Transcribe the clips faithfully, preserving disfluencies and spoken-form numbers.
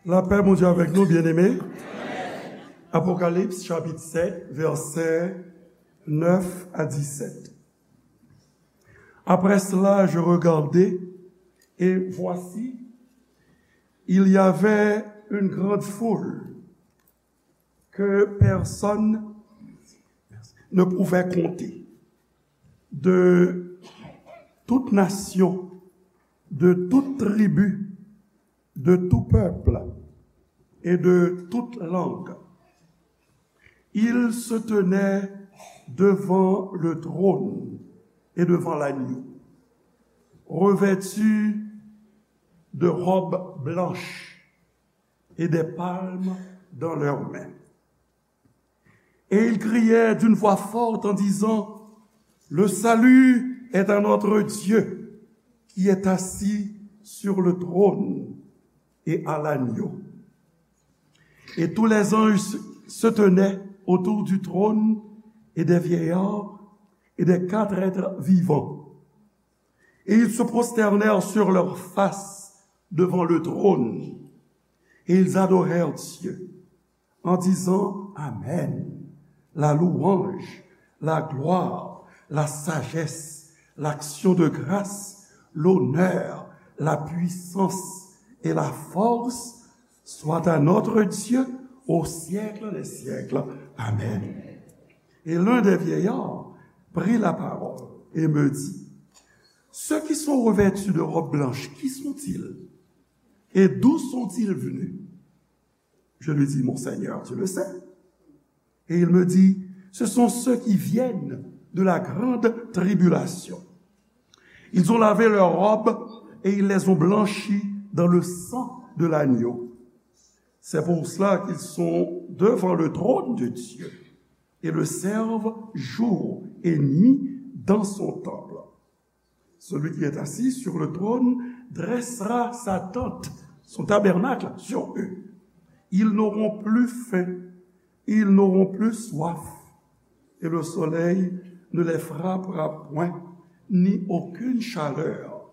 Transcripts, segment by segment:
Lapè Bondye avèk nou, byeneme. Apokalips, chapit sèt, vèsè nèf a disèt. Après cela, je regardai, et voici, il y avait une grande foule que personne ne pouvait compter, de toute nation, de toute tribu, de tout peuple et de toute langue. Ils se tenaient devant le trône et devant l'agneau, revêtus de robes blanches et des palmes dans leurs mains. Et ils criaient d'une voix forte en disant, le salut est à notre Dieu qui est assis sur le trône et à l'agneau. Et tous les anges se tenaient autour du trône et des vieillards et des quatre êtres vivants. Et ils se prosternèrent sur leurs faces devant le trône. Et ils adorèrent Dieu en disant, amen. La louange, la gloire, la sagesse, l'action de grâce, l'honneur, la puissance et la force soient à notre Dieu au siècle des siècles. Amen. Et l'un des vieillards prit la parole et me dit, ceux qui sont revêtus de robes blanches, qui sont-ils? Et d'où sont-ils venus? Je lui dis, mon Seigneur, tu le sais. Et il me dit, ce sont ceux qui viennent de la grande tribulation. Ils ont lavé leurs robes et ils les ont blanchies dans le sang de l'agneau. C'est pour cela qu'ils sont devant le trône de Dieu et le servent jour et nuit dans son temple. Celui qui est assis sur le trône dressera sa tente, son tabernacle, sur eux. Ils n'auront plus faim, ils n'auront plus soif, et le soleil ne les frappera point, ni aucune chaleur,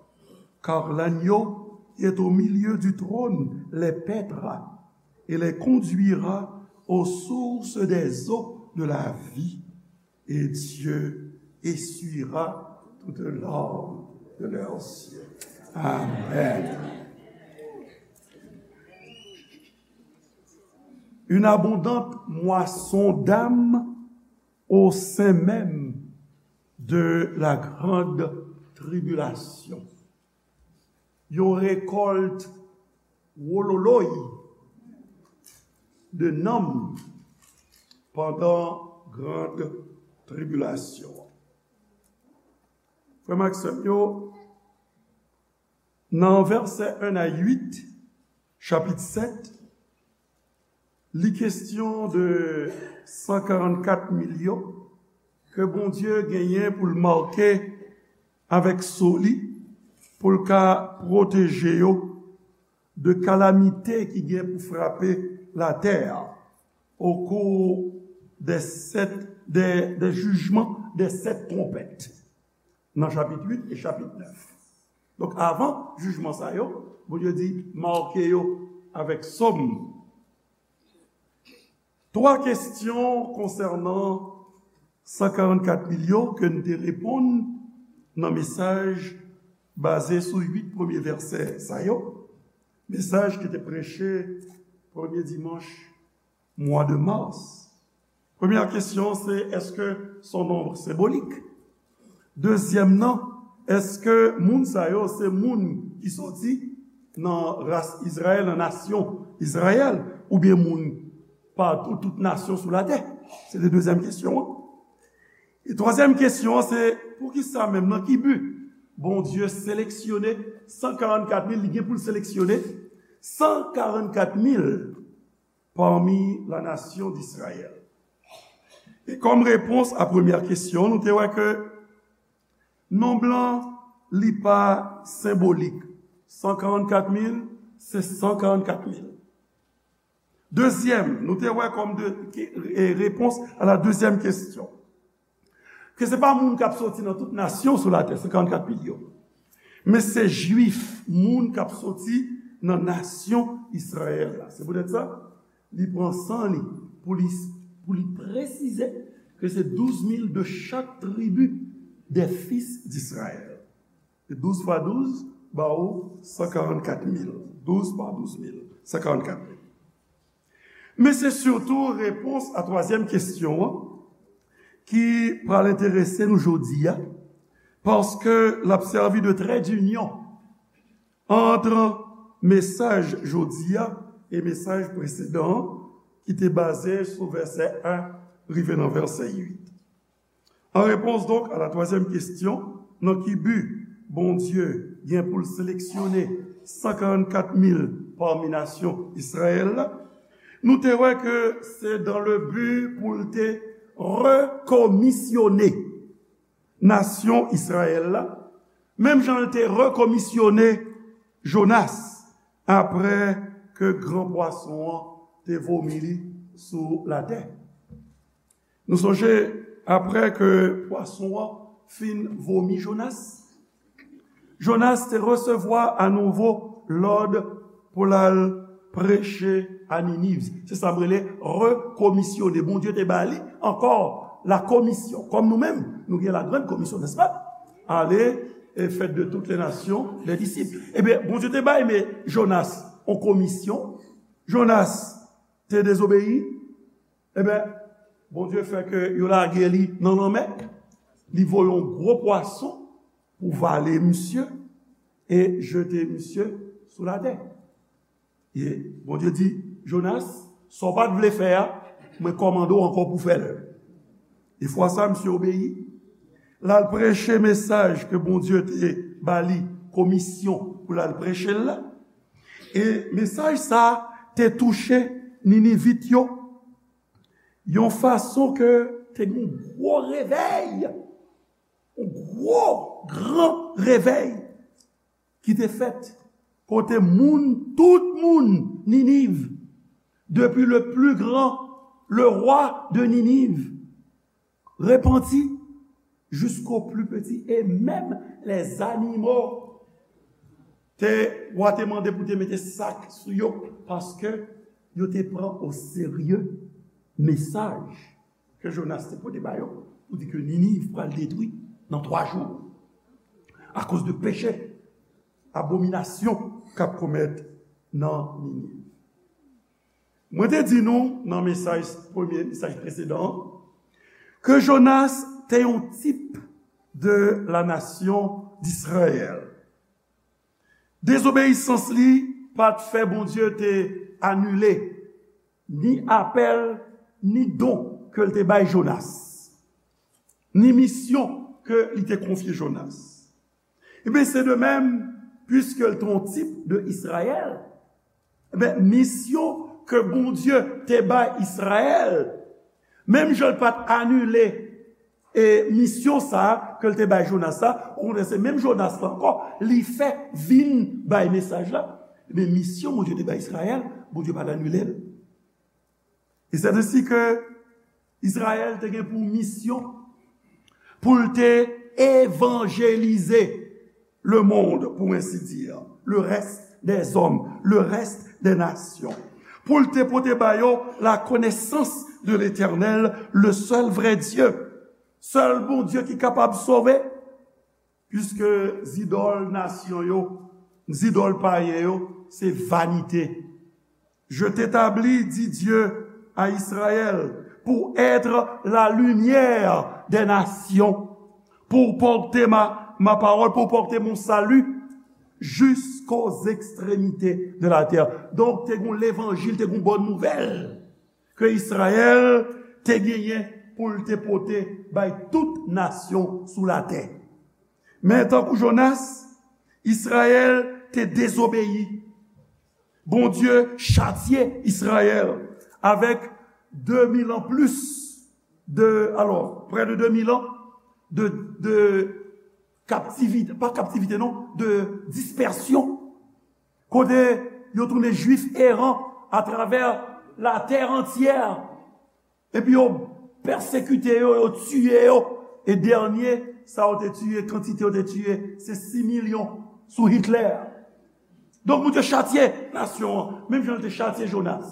car l'agneau qui est au milieu du trône les paîtra et les conduira aux sources des eaux de la vie. Et Dieu essuiera toute larme de leurs yeux. Amen. Une abondante moisson d'âmes au sein même de la grande tribulation. Yon rekòlt wololoy de nanm pandan grande tribulation. Frè m ak sè m yo, nan vèsè en a uit, chapit sèt, li kesyon de san karannkat milyon ke Bondye genyen pou l make avèk so li, pou l ka pwoteje yo de kalamite ki gen pou frape latè a, au cours des sept, des, des jugements des sept trompettes, nan chapit uit e chapit nèf. Donk, avan jijman sa yo, Bondye di, make yo avèk so m. Twa kesyon konsènan san karannkat milyon ke n te reponn nan mesaj baze sou uit premye vèsè sa yo, mesaj ki te preche premye dimanch mwa de mas. Premyè kesyon se, èske se yon nonb senbolik? Dezyèm nan, èske moun sa yo se moun ki soti nan ras Izrayèl, nan nasyon Izrayèl, oubyen moun patou, tout nasyon sou latè? Se te dezyèm kesyon an. E twazyèm kesyon an se, poukisa menm, nan ki bi Bondye seleksyone san karannkat mil, li gen pou l seleksyone san karannkat mil pami la nasyon d'Izrayèl? E kòm repons a premyè kesyon, nou te wè ke nonb lan, li pa senbolik. San karannkat mil, se san karannkat mil. Dezyèm, nou te wè kòm de, ke, e, repons a la dezyèm kesyon, ke se pa moun k ap soti nan tout nasyon sou latè, san karannkat mil yo, men se Jwif, moun k ap soti nan nasyon Izrayèl la. Se poutèt sa, li pran san li pou li, pou li presize ke se douz mil de chak tribi des fils d'Israël. E douz fwa douz ba ou san karannkat mil. Douz pa douz mil, san karannkat mil. Men se sitou repons a twazyèm kesyon an ki pral enterese nou jodi a, paske l ap sèvi de trè dinyon ant mesaj jodi a e mesaj presedan an ki te baze sou vèsè en rive nan vèsè uit. An repons donk a la twazyèm kesyon, nan ki bi Bondye gen pou l seleksyone san karannkat mil pami nasyon Izrayèl la, nou te wè ke se dans le but pou l te rekomisyone nasyon Izrayèl la, menm jan l te rekomisyone Jonas apre ke gran pwason an te vomi li sou latè. Nou sonje, apre ke pwason an fin vomi Jonas, Jonas te resevwa anouvo lòd pou l al preche a Niniv. Se sa m rele rekomisyone. Bondye te ba li ankò la komisyon. Kòm nou menm, nou gen la grande commission, n'est-ce pas? Allez et faites de toutes les nations des disciples. Ebyen, Bondye te bay, men Jonas, yon komisyon. Jonas te dezobeyi. Ebyen, Bondye fè ke yo lage li nan lanmè. Li voye yon gwo pwason pou vale misye e jete misye sou latè. E Bondye di, Jonas, sa w pa t vle fè a, mwen kòmande w ankò pou fè l. E fwa sa, misye obeyi. L al preche mesaj ke Bondye te ba li komisyon pou l al preche l la. E mesaj sa a te touche Ninivit yo yon fason ke te gen yon gwo revèy, yon gwo, gran revèy ki te fèt, kote moun, tout moun Niniv, depuis le plus grand, le roi de Ninive, repanti, jusqu'au plus petit, et même les animaux. Te, wa te mande pou te mete sak sou yo, paske yo te pran o serye mesaj ke Jonas te pote ba yo, pou di ke Niniv pral detwi nan twa jou, akoz de peche, abominasyon k ap komèt nan Niniv. Mwen te di nou nan mesaj, premye mesaj presedan an, ke Jonas te yon tip de la nasyon d'Israël. Dezobeyisans li pa t fè Bondye te anile ni apèl, ni don ke l te bay Jonas, ni misyon ke li te konfye Jonas. Ebyen, se de menm, piske l te yon tip de Izrayèl, ebyen, misyon ke Bondye te bay Izrayèl, menm jan l pa t anile e misyon sa a ke l te bay Jonas la, okontrè, se menm Jonas la ankò, li fè vin bay mesaj la. Ebyen, misyon Bondye te bay Izrayèl, Bondye pa t anile l. E se ensi ke Izrayèl te gen pou misyon pou l te evanjelize le monde, pour ainsi dire, le reste des hommes, le reste des nations. Pou l te pote ba yo la connaissance de l'Éternel, le seul vrai Dieu. Sèl Bondye ki kapab sove, piske zidòl nasyon yo, zidòl payen yo, se vanite. Je t'établis, dit Dieu à Israël, pour être la lumière des nations, pour porter ma, ma parole, pour porter mon salut jusqu'aux extrémités de la terre. Donk, te gen levanjil, te gen bòn nouvèl ke Izrayèl te genyen pou l te pote bay tout nasyon sou latè. Men tankou Jonas, Izrayèl te dezobeyi. Bondye chatye Izrayèl avèk de mil an plis de, alò, prè de de mil an de, de kaptivite, pa kaptivite non, de dispèsyon. Kote yo tounen Jwif eran atravè latè antyè. Epi yo pèsekite yo, yo tiye yo. E dènye, sa yo te tiye, kantite yo te tiye, se sis milyon sou Hitler. Donk, Bondye chatye nasyon an, menm jan l te chatye Jonas.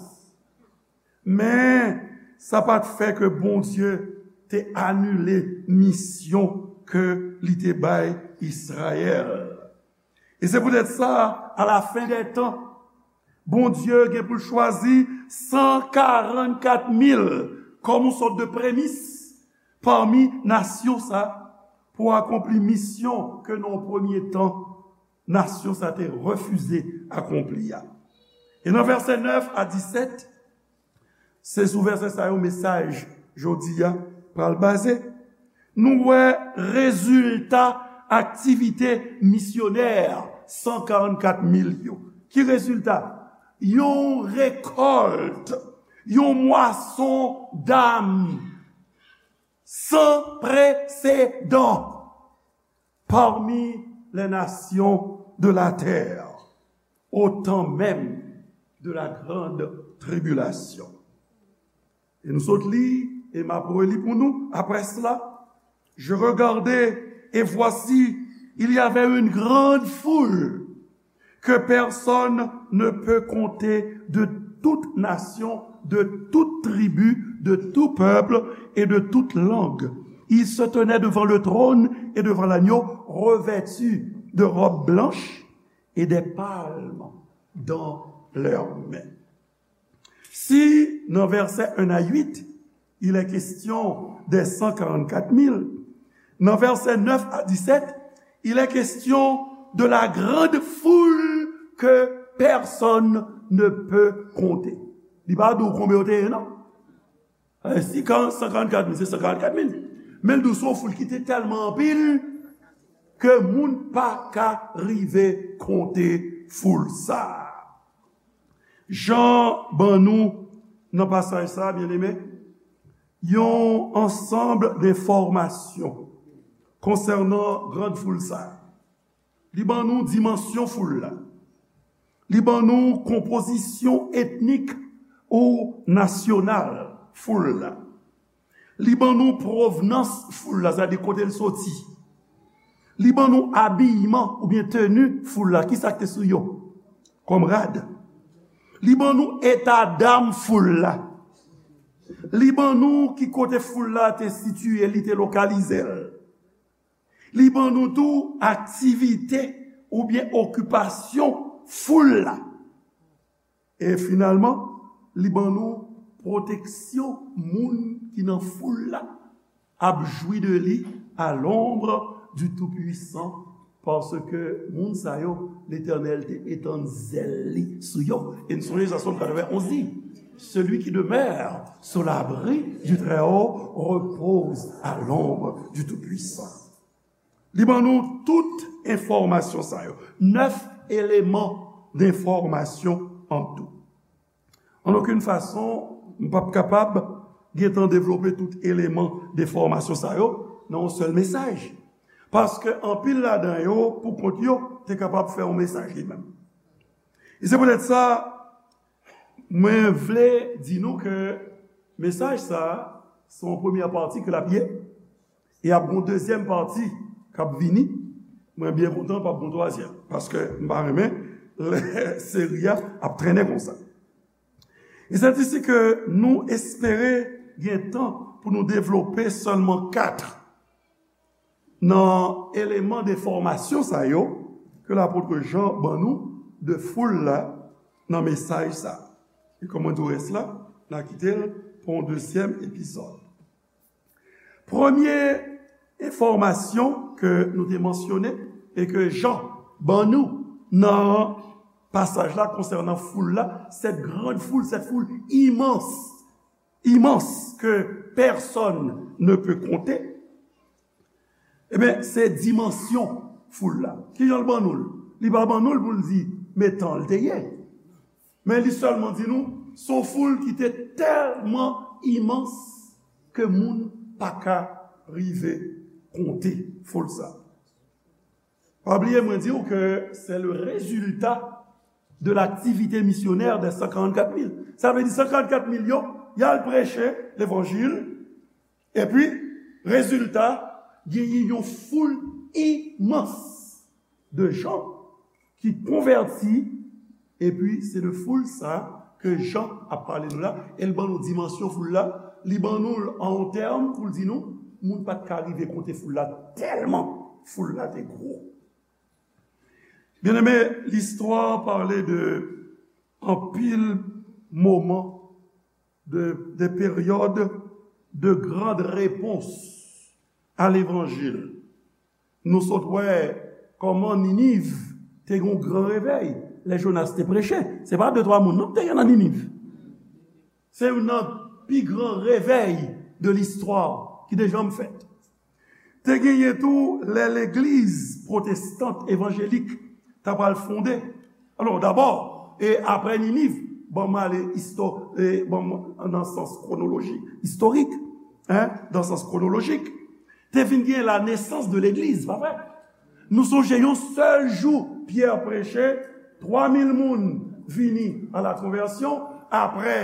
Men, sa pa t fè ke Bondye te anile misyon ke li te bay Izrayèl. E se poutèt sa, alafen dè tan, Bondye gen pou l chwazi san karannkat mil kòm yon sòt de premis pami nasyon sa pou akonpli misyon ke nan yon premye tan, nasyon sa te refize akonpli a. E nan vèsè nèf a disèt, se sou vèsè sa yo mesaj jodi a pral baze. Nou wè rezilta aktivite misyonè san karannkat mil yo. Ki rezilta? Yon rekòlt, yon mwason dam san presedan parmi les nations de la terre, au temps même de la grande tribulation. E nou sot li, e m ap reli pou nou, après cela, je regardai, et voici, il y avait une grande foule que personne ne peut compter, de toute nation, de toute tribu, de tout peuple et de toute langue. Ils se tenaient devant le trône et devant l'agneau, revêtus de robes blanches et des palmes dans leurs mains. Si nan vèsè un à huit, il est question des cent quarante-quatre mille, nan vèsè nèf a disèt, il est question de la grande foule que personne ne peut compter. Li pa di w konbyen yo te ye, non. Eh, si san karannkat mil, se san karannkat mil. Men l di w se yon foul ki te tèlman anpil ke moun pa ka rive konte foul sa a. Jan ban nou nan pasaj sa a, byeneme, yon ansanm de enfòmasyon konsènan grann foul sa a. Li ban nou dimansyon foul la. Li ban nou konpozisyon etnik ou nasyonal foul la. Li ban nou pwovnans foul la, sètadi kote l soti. Li ban nou abiyman oubyen teni foul la, ki sa k te sou yo kòm rad. Li ban nou eta dam foul la. Li ban nou ki kote foul la te sitiye, li te lokalize l. Li ban nou tou aktivite oubyen okipasyon foul la. E finalman, li ban nou pwoteksyon moun ki nan foul la ap jwi de li à l'ombre du Tout-Puissant, paske moun sa yo, Letènèl te etann zèl li sou yo. E n sonje sa Sòm katrevenn onz di, celui qui demeure sous l'abri du Très-Haut repose à l'ombre du Tout-Puissant. Li ban nou tout enfòmasyon sa yo. Nèf eleman denfòmasyon an tou. An okenn fason, m p ap kapab gentan devlope tout eleman denfòmasyon sa yo nan yon sèl mesaj. Paske anpil ladan yo, pou kont yo, te kapab fè yon mesaj li menm. E se poutèt sa, mwen vle di nou ke mesaj sa a, se yon premyè pati ke l ap ye, e ap gen yon dezyèm pati k ap vini. Mwen byen kontan p ap gen yon twazyèm, paske m pa renmen lè seri a ap trennen konsa. E se disi ke nou espere gen tan pou nou devlope sèlman kat nan eleman denfòmasyon sa yo ke lapot Jan ban nou de foul la nan mesaj sa. E kòm mwen di w rès la, n a kite l pou yon dezyèm epizòd. Premye enfòmasyon ke nou te mansyone e ke Jan ban nou nan pasaj la konsènan foul la, cette grande foule, cette foule immense, immense que personne ne peut compter, ebyen, se dimansyon foul la. Kijan l ban nou l? Li pa ban nou l pou l di men tan l te ye. Men li sèlman di nou, se yon foul ki te tèlman imans ke moun pa ka rive konte foul sa. Pa bliye mwen di w ke c'est le résultat de l'activité missionnaire des cent quarante-quatre mille. Sa vle di san karannkat mil yo, y al preche levanjil, epi, rezilta, genyen yon foul imans de jan ki konvèti Epi, se de foul sa ke Jan ap pale nou la, e l ban nou dimansyon foul la, li ban nou l an yon tèm pou l di nou, moun pa t ka rive konte foul la, tèlman foul la te gwo. Byeneme, listwa pale de anpil moman, de, de peryòd de grande réponse à l'évangile. Nou sot wè kòman Niniv te gen yon gran revèy lè Jonas te preche. Se pa de twa moun non ki te gen nan Niniv. Se youn nan pi gran revèy de listwa ki te janm fèt. Te genyen tou lè legliz pwotestant evanjelik ta pral fonde. Alò, dabò, e apre Niniv, ban m ale isto, e ban m nan sans kwonoloji, istorik, en, nan sans kwonolojik, te vin gen la nesans de legliz, pa vre? Nou sonje yon sèl jou Pyè preche, twa mil moun vini a la konvèsyon, apre,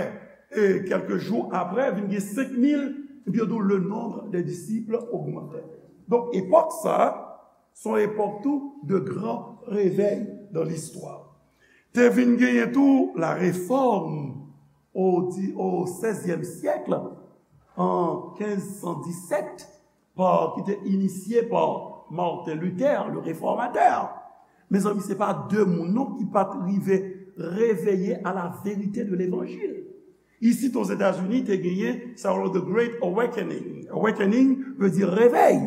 e kèlke jou apre, vin gen senk mil, epi yo di w, le nombre des disciples augmentait. Donk, epòk sa a, se yon epòk tou de gran revèy dans l'histoire. Te vin genyen tou la réforme au di-, au seizième siècle, an kenz san disèt, pa, ki te inisye pa Martin Luther, le réformateur. Mezanmi, se pa de moun non ki pa t rive reveye à la vérité de l'évangile. Isit Ozetazini, te genyen sa yo rele the Great Awakening. Awakening vle di revèy.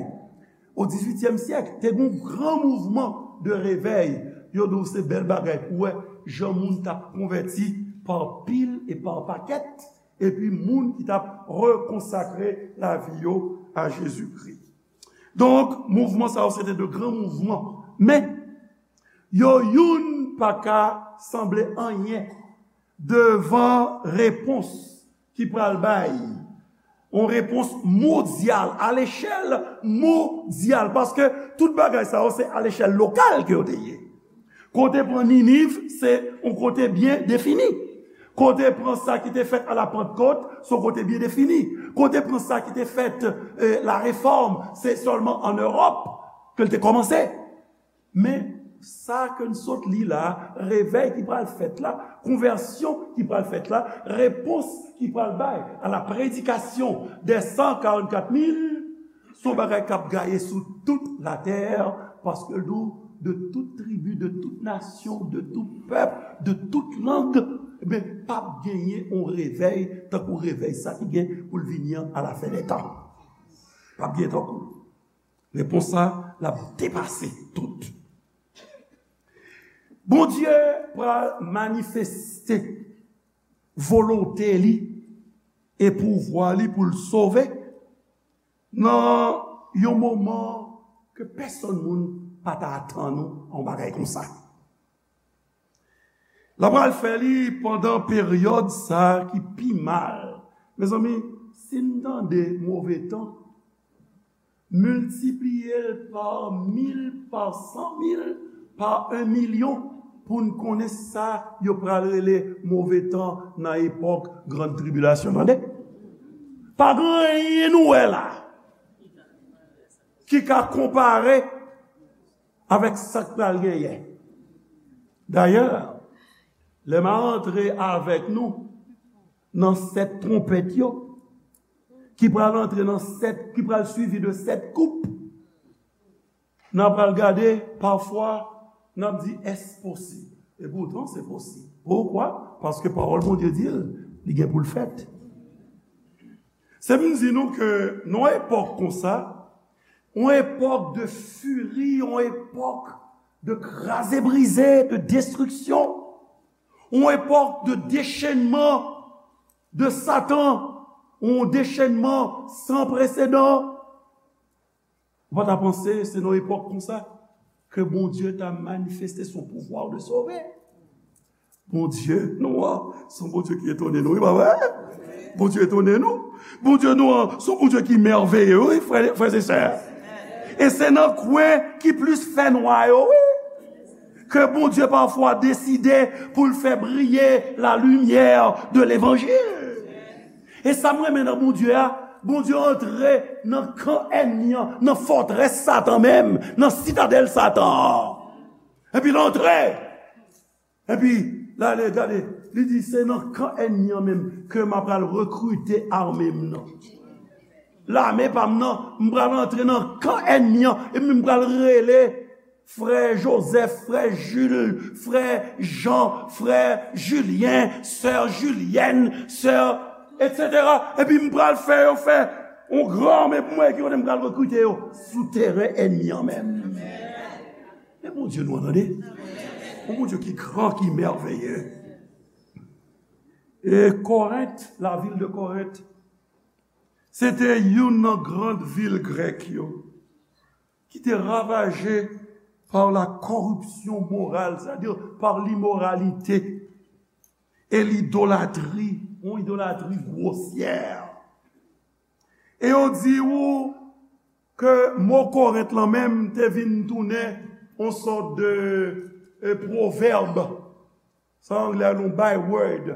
O dizuityèm syèk, te gen yon gran mouvman de revèy. Yo di w se bèl bagay pou wè jan moun t ap konvèti pa pil e pa pakèt, epi moun ki t ap rekonsakre lavi yo a Jezikri. Donk, mouvman sa yo se te de gran mouvman. Men, yo youn pa ka sanble anyen devan repons ki pral bay. Yon repons mondyal, a lechèl mondyal, paske tout bagay sa yo se a lechèl lokal ke yo te ye. Kote pran Niniv, se yon kote byen defini. Kote pran sa ki te fèt a la Pantkòt, se yon kote byen defini. Kote pran sa ki te fèt, eh, la Réforme, se sèlman an Ewòp ke l te kòmanse. Men, sa ke n sot li la, revèy ki pral fèt la, konvèsyon ki pral fèt la, repons ki pral bay à la prédication des cent quarante-quatre mille, se yon bagay k ap gaye sou tout latè, paske l di w, de tout tribi, de tout nasyon, de tout pèp, de tout lang, ebyen, p ap genyen yon revèy tankou revèy sa ki gen pou l vini an a la fen dè tan. P ap gen tankou l. Repons sa, l ap depase tout. Bondye pral manifeste volonte li e pouvwa li pou l sove nan yon moman ke pèsonn moun pa ta atann ou yon bagay konsa. L ap pral fè li pandan peryòd sa a ki pi mal. Mezanmi, si n tande move tan, miltipliye l pa mil, pa san mil, pa en milyon, pou n konnen sa yo pral rele move tan nan epòk grann tribilasyon. Tande? Pa gen anyen nou wè la ki ka konpare avèk sa k pral genyen. Dayè, lè m a rantre avèk nou nan sèt twonpèt yo, ki pral antre nan sèt, ki pral swivi de sèt koup, n a pral gade, pafwa, n ap di, "Èske posib?" E poutan, se posib. Poukwa? Paske pawòl Bondye di l, li gen pou l fèt. Se vin di nou ke nan yon epòk konsa, yon epòk de firi, yon epòk de kraze brize, de destriksyon, yon epòk de dechenman de Satan, yon dechenman san presedan. Ou pa ta panse se nan epòk konsa ke Bondye ta manifeste son pouvoir de sauver? Bondye nou an, se yon Bondye ki etone nou, wi, pa vre? Bondye etone nou. Bondye nou an, se yon Bondye ki mèveye, wi, frè, frè e sè. E se nan kwen ki plis fè nwa yo, wi, ke Bondye pafwa deside pou l fè briye la limyè de levanjil. E sa m renmen nan Bondye a, Bondye antre nan kan ènmi an, nan fòtrès Satan menm, nan sitadèl Satan an. Epi l antre. Epi, Gade, gade, li di, se nan kan ènmi an menm ke m ap pral rekrite ame m nan. Lame pa m nan, m pral antre nan kan ènmi an, epi m pral rele frè Joseph, frè Jules, frè Jean, frè Julien, sè Julienne, sè, et cetera. Epi m pral fè yo fè yon gran ame pou mwen, ki kote m pral rekrite yo? Sou teren ènmi an menm. Men Bondye nou an, tande. Yon Bondye ki gran, ki mèveye. E Korent, la ville de Korent, se te youn nan gran vil grèk yo, ki te ravaje par la corruption morale, c'est-à-dire par l'immoralité et l'idolâtrie, yon idolatri gwosyè. E yo di ou ke mo Korent lan menm te vin tounen yon sòt de, e, pwovèb. Sa anglè a rele yon byword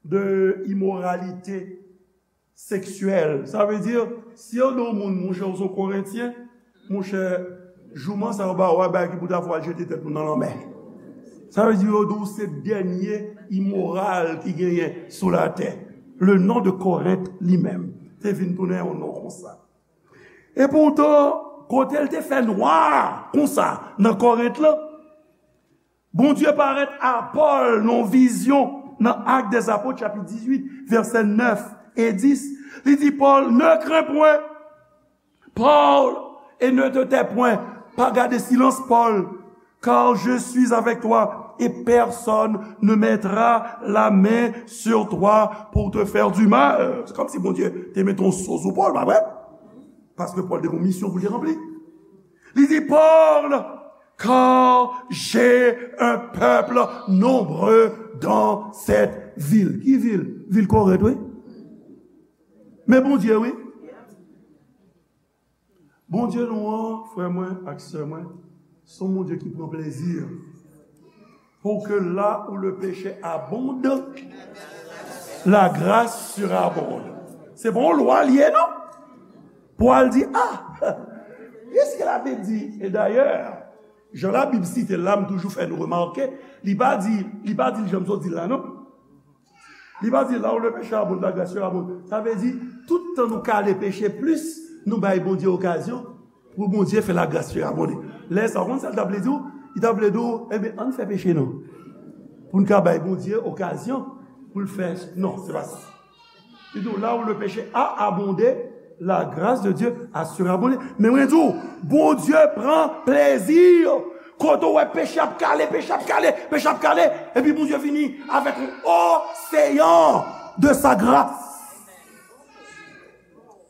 de imoralite seksyèl. Sa vle di, si yo di yon moun, monchè, ou se yon Korentyen, monchè, jouman sa yo ba ou a, bagay ki pou ta fè w al jete tèt ou nan lanmè. Sa vle di, yo di w se dènye imoral ki genyen sou latè. Le nom de Korent li menm te vin tounen yon non konsa. E poutan, kote l te fè nwa konsa nan Korent lan, Bondye parèt a Pòl nan yon vizyon nan Actes des Apôtres, chapit dizuit, vèsè nèf e dis. Li di Pòl, ne crains point, Paul, et ne te tais point, pa gade silans, Pòl, car je suis avec toi, et personne ne mettra la main sur toi pour te faire du mal. Se kòmsi Bondye te mete yon so sou Pòl, pa vre? Paske Pòl te gen yon misyon pou l te ranpli. Li di, Paul, car j'ai un peuple nombreux dans cette ville. Ki vil? Vil Korent, wi. Men Bondye, wi. Bondye nou an, frè mwen ak sè mwen, se yon Bondye ki pran plezi. Pour que là où le péché abonde, la grâce surabonde. Se pa yon lwa li ye, non? Pou al di, ah, est-ce que la Bible dit? E dayè, jan Labib site l la, m toujou fè nou remake, li pa di, li pa di l jan m sot di l la, non. Li pa di, là où le péché abonde, la grâce surabonde. Sa vle di, tout tan nou kale peche plis, nou bay Bondye okazyon pou Bondye fè la grâce surabonde. Lè sa, ou konn sa l t ap vle di w? Li t ap vle di w, enben, ann fè peche non. Pou n ka bay Bondye okazyon pou l fè, non, se pa sa. Li di w, là où le péché a abondé, la grâce de Dieu a surabondé. Men mwen di w, Bondye pran plezi. Kote w wè peche ap kale, peche ap kale, peche ap kale, epi Bondye vini avèk yon oseyan de sa gras.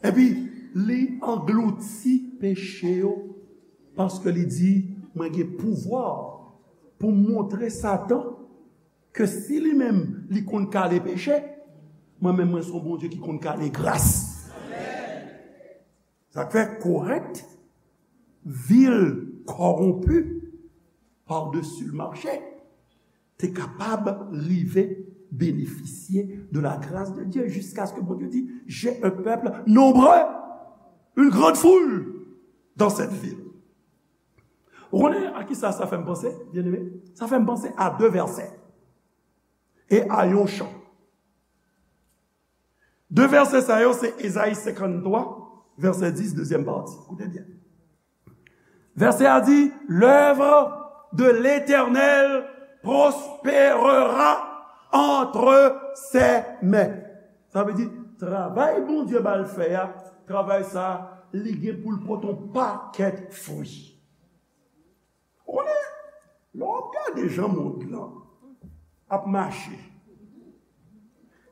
Epi li anglouti peche yo, paske li di, mwen gen pouvwa pou m montre Satan ke si li menm li konn kale peche, mwen menm mwen se yon Bondye ki konn kale gras. Sa k fè Korent, vil kòwonpi, par-dessus le marché, te kapab rive benefisye de la grâce de Dieu jusqu'à ce que Bondye di, j'ai un peuple nombreux, une grande foule dans cette ville. Ou konnen a ki sa sa fè m panse, byeneme? Sa fè m panse a de vèsè e a yon chan. De vèsè sa yo se Ezayi senkanntwa, vèsè dis, dezyèm pati. Koute byen. Vèsè a di, l'œuvre de l'Éternel prospérera entre ses mains. Sa vle di, travay Bondye ba l fè a, travay sa, li gen pou l pote yon pakèt fwi. Ou konnen, lè w ap gade jan mond lan ap mache,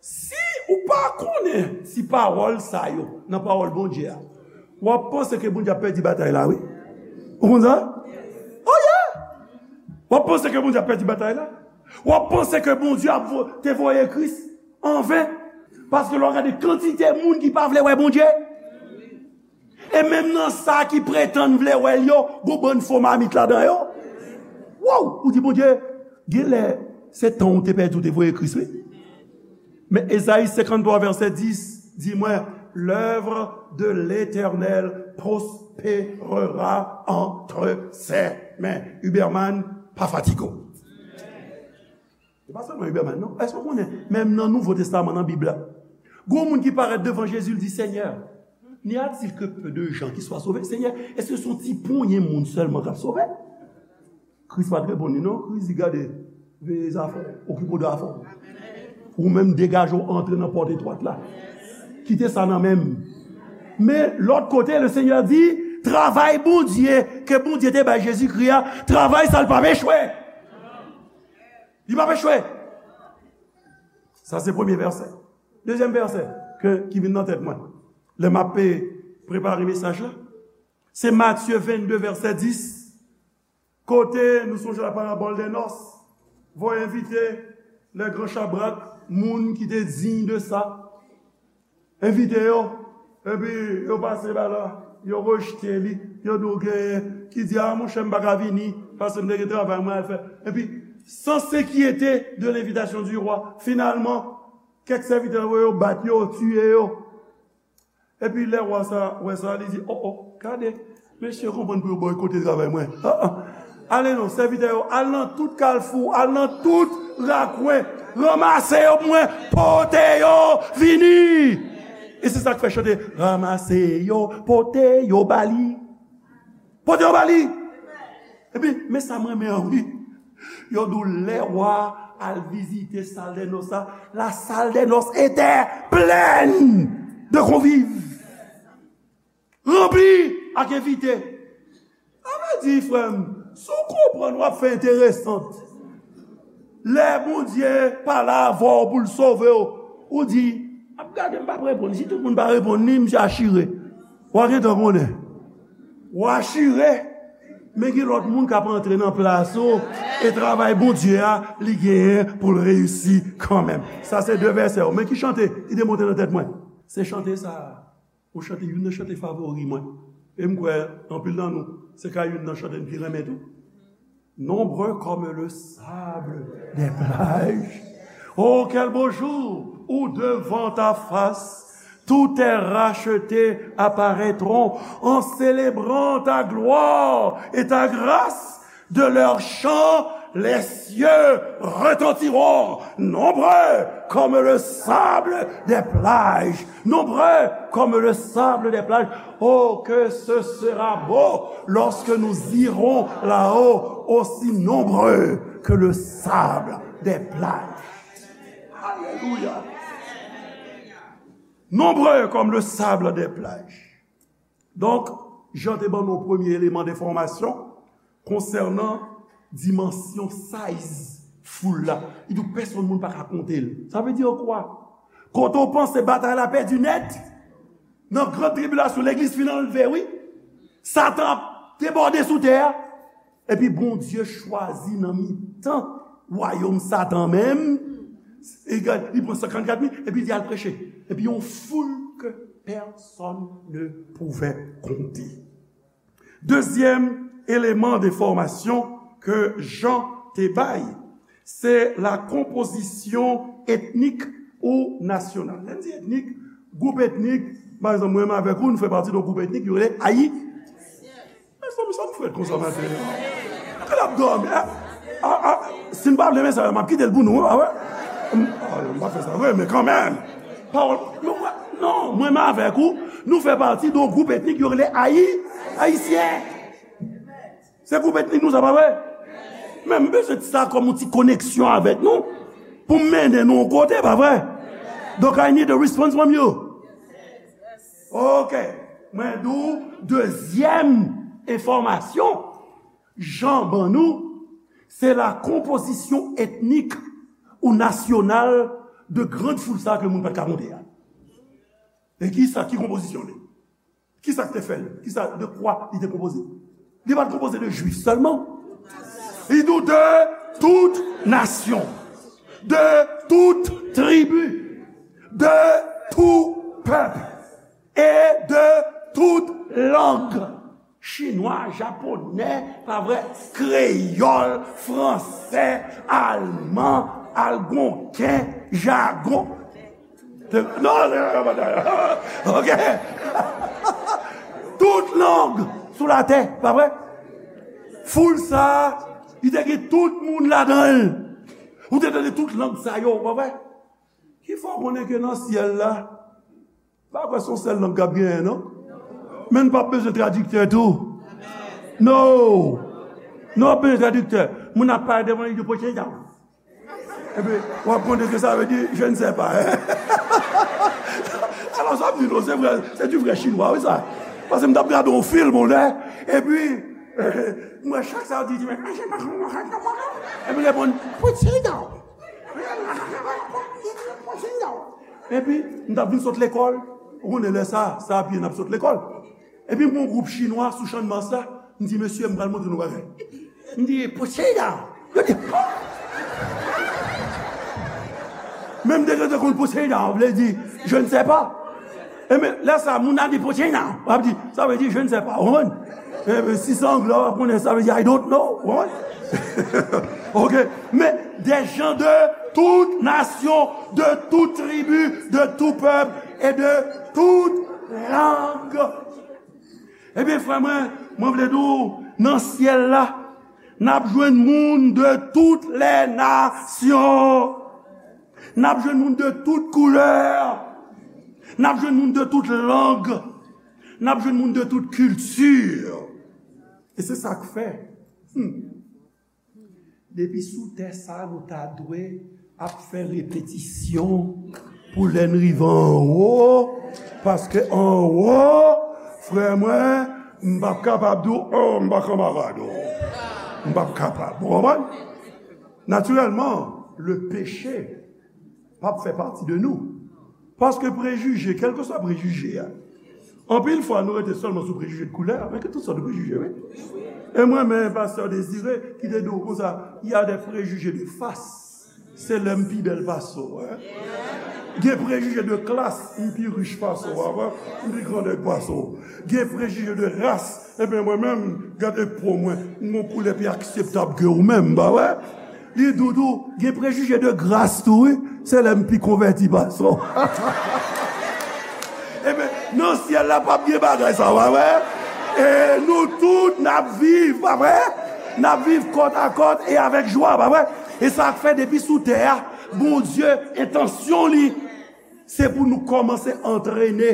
si ou pa konnen ti pawòl sa yo nan pawòl Bondye a, w ap panse ke Bondye ap pèdi batay la, wi. Ou konn sa? Oh yeah! W ap panse ke Bondye ap pèdi batay la. W ap panse ke Bondye ap vo-, te voye Kris anven. Paske lè w gade kantite moun ki pa vle wè Bondye, e menm nan sa ki pretann vle wè l yo, gon bann fo mamit ladan yo. Wow! Ou di, Bondye, genlè se tan w te pèdi, w te voye Kris, wi. Men Ezayi senkanntwa, vèsè dis, di mwen, l'œuvre de l'Éternel prospérera entre ses mains. Huberman, pa fatige w. Se pa sèlman Huberman, non. Èske w konnen, menm nan Nouvo Testaman, nan Bib la, gon moun ki parèt devan Jezi, l di, Seigneur, n'y a-t-il que peu de gens qui soient sauvés? Senyè, èske se yon ti ponyen moun sèlman k ap sove? Kris pa t reponn li, non. Kris di, gade, veye zafè w, okipe w de afè w. Ou menm, degaje w, antre nan pòt etwat la. Kite sa nan men m. Men, lòt kote, le Seigneur di, travay Bondye, ke Bondye te bay Jezikri a, travay sa l p ap echwe. Li p ap echwe. Sa se premye vèsè. Dezyèm vèsè ke, ki vin nan tèt mwen lè m ap, eh, prepare mesaj la, se Matye vennde, vèsè dis, kote nou sonje la parabòl dè nòs, voye envite lè gran chabrak, moun ki te diy de sa, envite yo, epi yo pase ba la, yo rejte li, yo di w genyen ki di, a, monchè, m pa ka vini, paske m te gen travay mwen al fè. Epi, sans s'inquiéter de l'invitation du roi, finalman, kèk sèvitè yo bat yo, tiye yo. Epi lè wa sa wè sa, li di, o, o, gade, mesye konprann pou yo bòykote travay mwen. Ah, ah. Ale non, sèvitè yo, al nan tout kalfou, al nan tout rakwen, ranmase yo pou mwen, pote yo vini. E se sa k fè chante, ranmase yo, pote yo ba li. Pote yo ba li. Epi, men sa m renmen an, wi. Yo di w lè wa al vizite sal dè nòs la, la salle des noces était pleine de convives. Ranpli ak envite. Sa vle di, frè m, si w konprann, w ap fè enteresant. Lè Bondye pale avè w pou l sove w, ou di, ap gade, m p ap reponn. Si tout moun pa reponn li, misye achire. W a gentan konnen. W achire, men gen lòt moun k ap antre nan plas ou, e travay Bondye a, li genyen pou l reyisi kanmenm. Sa se de vèsè yo. Men ki chante ki te monte nan tèt mwen? Se chante sa a. Yon chante, youn nan chante favori mwen. E m kwè, anpil nan nou, se ka youn nan chante n pi renmen tou. Nombreux comme le sable des plages. Oh, quel beau jour où devant ta face tous tes rachetés apparaîtront en célébrant ta gloire et ta grâce. De leurs chants, les cieux retentiront, nombreux comme le sable des plages, nombreux comme le sable des plages. Oh, que ce sera beau lorsque nous irons là-haut, aussi nombreux que le sable des plages. Alléluia. Nombreux comme le sable des plages. Donk, Jan te ban nou premye eleman de enfòmasyon konsènan dimansyon, size foul la. Li di w pèsonn moun pa ka konte l. Sa vle di kwa? Kote w panse batay la pèdi nèt, nan gran tribilasyon, legliz fin anlve, wi. Satan ap debòde sou tè a. Epi Bondye chwazi nan mitan wayòm Satan menm, li pran senkannkat mil, epi li al preche. Epi yon foul ke personne ne pouvait compter. Dezyèm eleman de enfòmasyon ke Jan te bay, se la konpozisyon etnik ou nasyonal. Lè n di etnik, gwoup etnik, pa egzanp, mwen menm avèk ou, nou fè pati de yon gwoup etnik, yo rele Ayi-, Mezanmi, sa m fè konsa maten an? Kè l ap dòmi, a, a, a, si n pa vle mesaj la, m ap kite l pou nou, a wè? M, a, m pa fè sa vre, men kanmenm. Pawòl, men wè, non, mwen menm avèk ou, nou fè pati de yon gwoup etnik yo rele Ayi-, Ayisyen. Se gwoup etnik nou, sa pa vre? Men m bezwen sa kòm yon ti koneksyon avèk nou, pou m mennen nou yon kote, pa vre? Donk, I need a response from you. Ok. Mwen di w, dezyèm enfòmasyon Jan ban nou, se la konpozisyon etnik ou nasyonal de grand foul sa ke moun pa t ka konte a. E ki sa, ki konpozisyon li? Ki sa k te fè l? Ki sa, de kwa li te konpoze? Li pa t konpoze de Jwif sèlman. Li di w de tout nasyon, de tout tribi, de tout pèp e de tout lang. Chinwa, japonè, pa vre, kreyòl, fransè, alman, algonken, jagon. Non, non, non, non, non. Ok. Tout lang sou latè, pa vre? Foul sa, li te gen tout moun ladan l. Ou te tande tout lang sa yo, pa vre? Ki fè w konnen ke nan syèl la, pa kwè se yon sèl lang k ap genyen, non? Men n p ap bezwen tradiktè tou. No! Nou p ap bezwen tradiktè. Moun ap pale devan li di, "Pochenda." Epi, w ap konn ke sa vle di, "Je ne sais pas." Alò, sa m di nou, se vrè, se di vrè chinwa, wi, sa. Paske m t ap gade yon fim, yon lè, epi, mwen, chak sa yo di, di, "Epi reponn, "Pochenda." Epi, m t ap vin sot lekòl. Ou konnen lè sa, sa a pye n ap sot lekòl. Epi, m gen yon gwoup chinwa sou Channmas la. M di, "Mesye, m pral montre nou bagay." M di, "Pochenda." Yo di, "Hò?" Men m te gentan konn pochenda vle di, "Je ne sais pas." E men, lè sa, moun nan di, "Pochenda." W ap di, "Sa vle di, je ne sais pas." Ou konprann? E men, si se anglè, w ap konnen, sa vle di, "I don't know." Ou konprann? Ok. Men, des gens de toute nation, de toute tribu, de tout peuple et de toute langue. Ebyen, frè mwen, mwen vle di w, nan syèl la, n ap jwenn moun de toutes les nations. N ap jwenn moun de tout koulè. N ap jwenn moun de tout lang. N ap jwenn moun de tout kilti. E se sa k fè, hmm, depi sou tè sa, nou ta dwe ap fè repetisyon pou lè n rive anwo, paske anwo, frè mwen, m p ap kapab di w, "Oh, m pa kanmarad ou." M p ap kapab. Ou konprann? Natirèlman, le péché p ap fè pati de nou. Paske prejije, kèlkeswa prejije a, anpil fwa nou rete sèlman sou prejije de koulè, men gen tout sòt de prejije, wi. E mwen, men pastè Désiré, ki te di w konsa, "Il y a des préjugés de face." Se lè m pi bèl pase w, wi. Gen prejije de klas, m pi rich pase w, wi, m pi grandèg pase w. Gen prejije de ras, ebyen mwen menm, gade po mwen, m gen yon koulè pi akseptab ke ou menm, pa vre? Li di w tou, gen prejije de gras tou, wi. Se lè m pi konvèti pase w. Ebyen, nan syèl la, p ap gen bagay sa, pa vre? E nou tout, n ap viv, pa vre? N ap viv kòt a kòt e avèk jwa, pa vre? E sa k fè depi sou tè a, Bondye, entansyon li, se pou nou kòmanse antrene,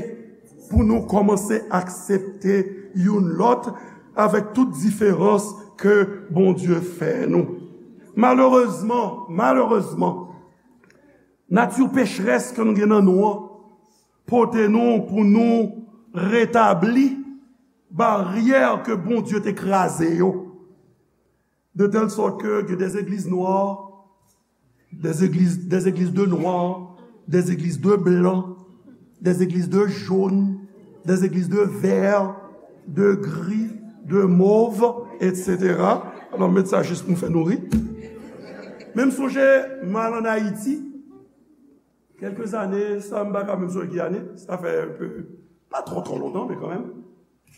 pou nou kòmanse aksepte youn lòt avèk tout diferans ke Bondye fè nou. Malerezman, malerezman, nati pecherès ke nou gen nan nou an pote nou pou nou retabli baryè ke Bondye te kraze yo. De telle sorte que il y a des églises noires, des églises, des églises de noirs, des églises de blancs, des églises de jaunes, des églises de verts, de gris, de mauves, et cetera. Alò, m met sa jis pou m fè nou ri. Men m sonje, m al ann Ayiti, kèlke zane, sa m pa ka menm sonje ki ane, sa fè un peu, pa twò, twò lontan, men kanmenm.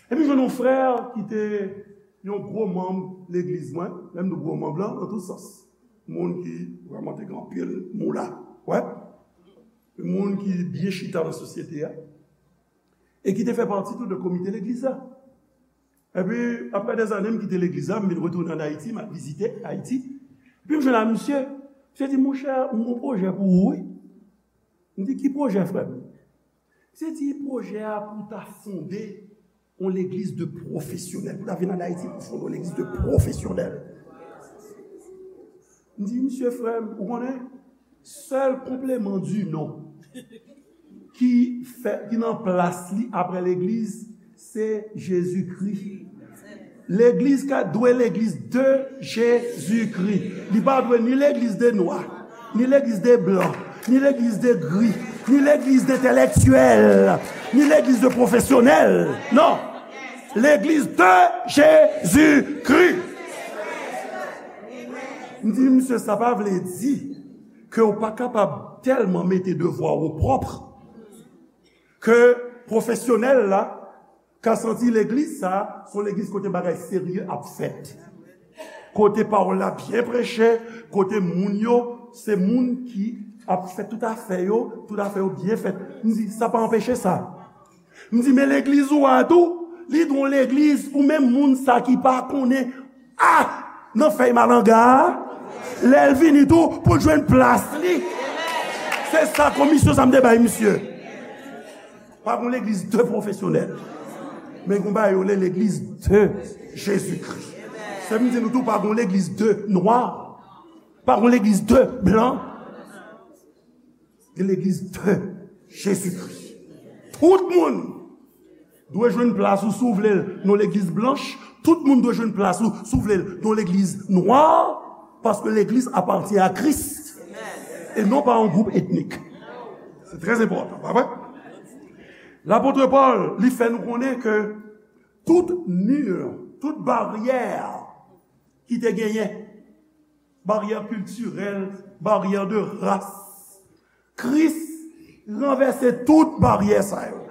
Epi jwenn yon frè ki te yon gwo manm legliz mwen, lè m di gwo manm lan, nan tout sans. Moun ki vrèman te gen anpil moula, wè. Moun ki byen chita nan sosyete a. E ki te fè pati tou de komite legliz la. Epi, apre dèzane, m kite legliz la, m vin retounen ann Ayiti, m al vizite Ayiti. Epi m jwenn ak misye, misye di, "Monchè, m gen yon pwojè pou ou, wi." M di, "Ki pwojè, frè m?" Misye di, "Pwojè a pou ta fonde yon legliz de pwofesyonèl, pou ta vin ann Ayiti pou fonde yon legliz de pwofesyonèl." M di, "Misye, frè m, ou konnen, sèl konpleman di non ki fè, ki nan plas li apre legliz, se Jezikri." Legliz ka dwe legliz de Jezikri. Li pa dwe ni legliz de nwa, ni legliz de blan, ni legliz de gri, ni legliz de entèlektyèl, ni legliz de pwofesyonèl. Non. Legliz de Jezikri. M di, "Misye, sa pa vle di ke w pa kapab tèlman mete devwa w opwòp ke pwofesyonèl la ka santi legliz sa a se yon legliz kote bagay serye ap fèt. Kote pawòl la byen preche, kote moun yo, se moun ki ap fè tout afè yo, tout afè yo byen fèt." M di, "Sa pa anpeche sa." M di, "Men legliz ou a tou, li dwe yon legliz pou menm moun sa ki pa konnen a nan fèy malanga a." Lè l vini tou, pou l jwenn plas li. Se sa komisyon sa m te bay misye. Pa gon legliz de pwofesyonèl. Men gon bagay yo rele legliz de Jezikri. Se m di nou tou, pa gon legliz de nwa. Pa gon legliz de blan. Gen legliz de Jezikri. Tout moun dwe jwenn plas ou si w vle l nan legliz blanch. Tout moun dwe jwenn plas ou si w vle l nan legliz nwa. Paske legliz apatyen a Kris e non pa yon gwoup etnik. Se trè enpòtan, pa vre? Lapot Pòl, li fè nou konnen ke tout mi, tout baryè ki te genyen, baryè kiltirèl, baryè de ras, Kris ranvèse tout baryè sa yo.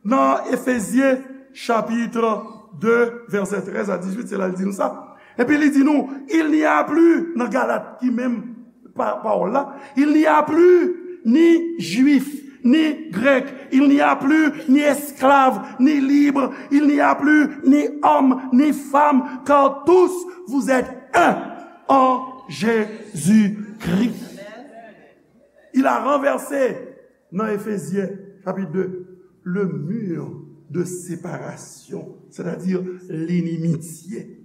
Nan Efezyen chapit de, vèsè trèz a dizuit, se la l di nou sa. Epi li di nou, il n'y a plus, nan Galat ki menm pa- pawòl la, il n'y a plus ni juif, ni grec, il n'y a plus ni esclave, ni libre, il n'y a plus ni homme, ni femme, car tous vous êtes un en Jésus-Christ. Il a renversé, nan Efezyen chapit de, le mur de séparation, c'est-à-dire l'inimitié.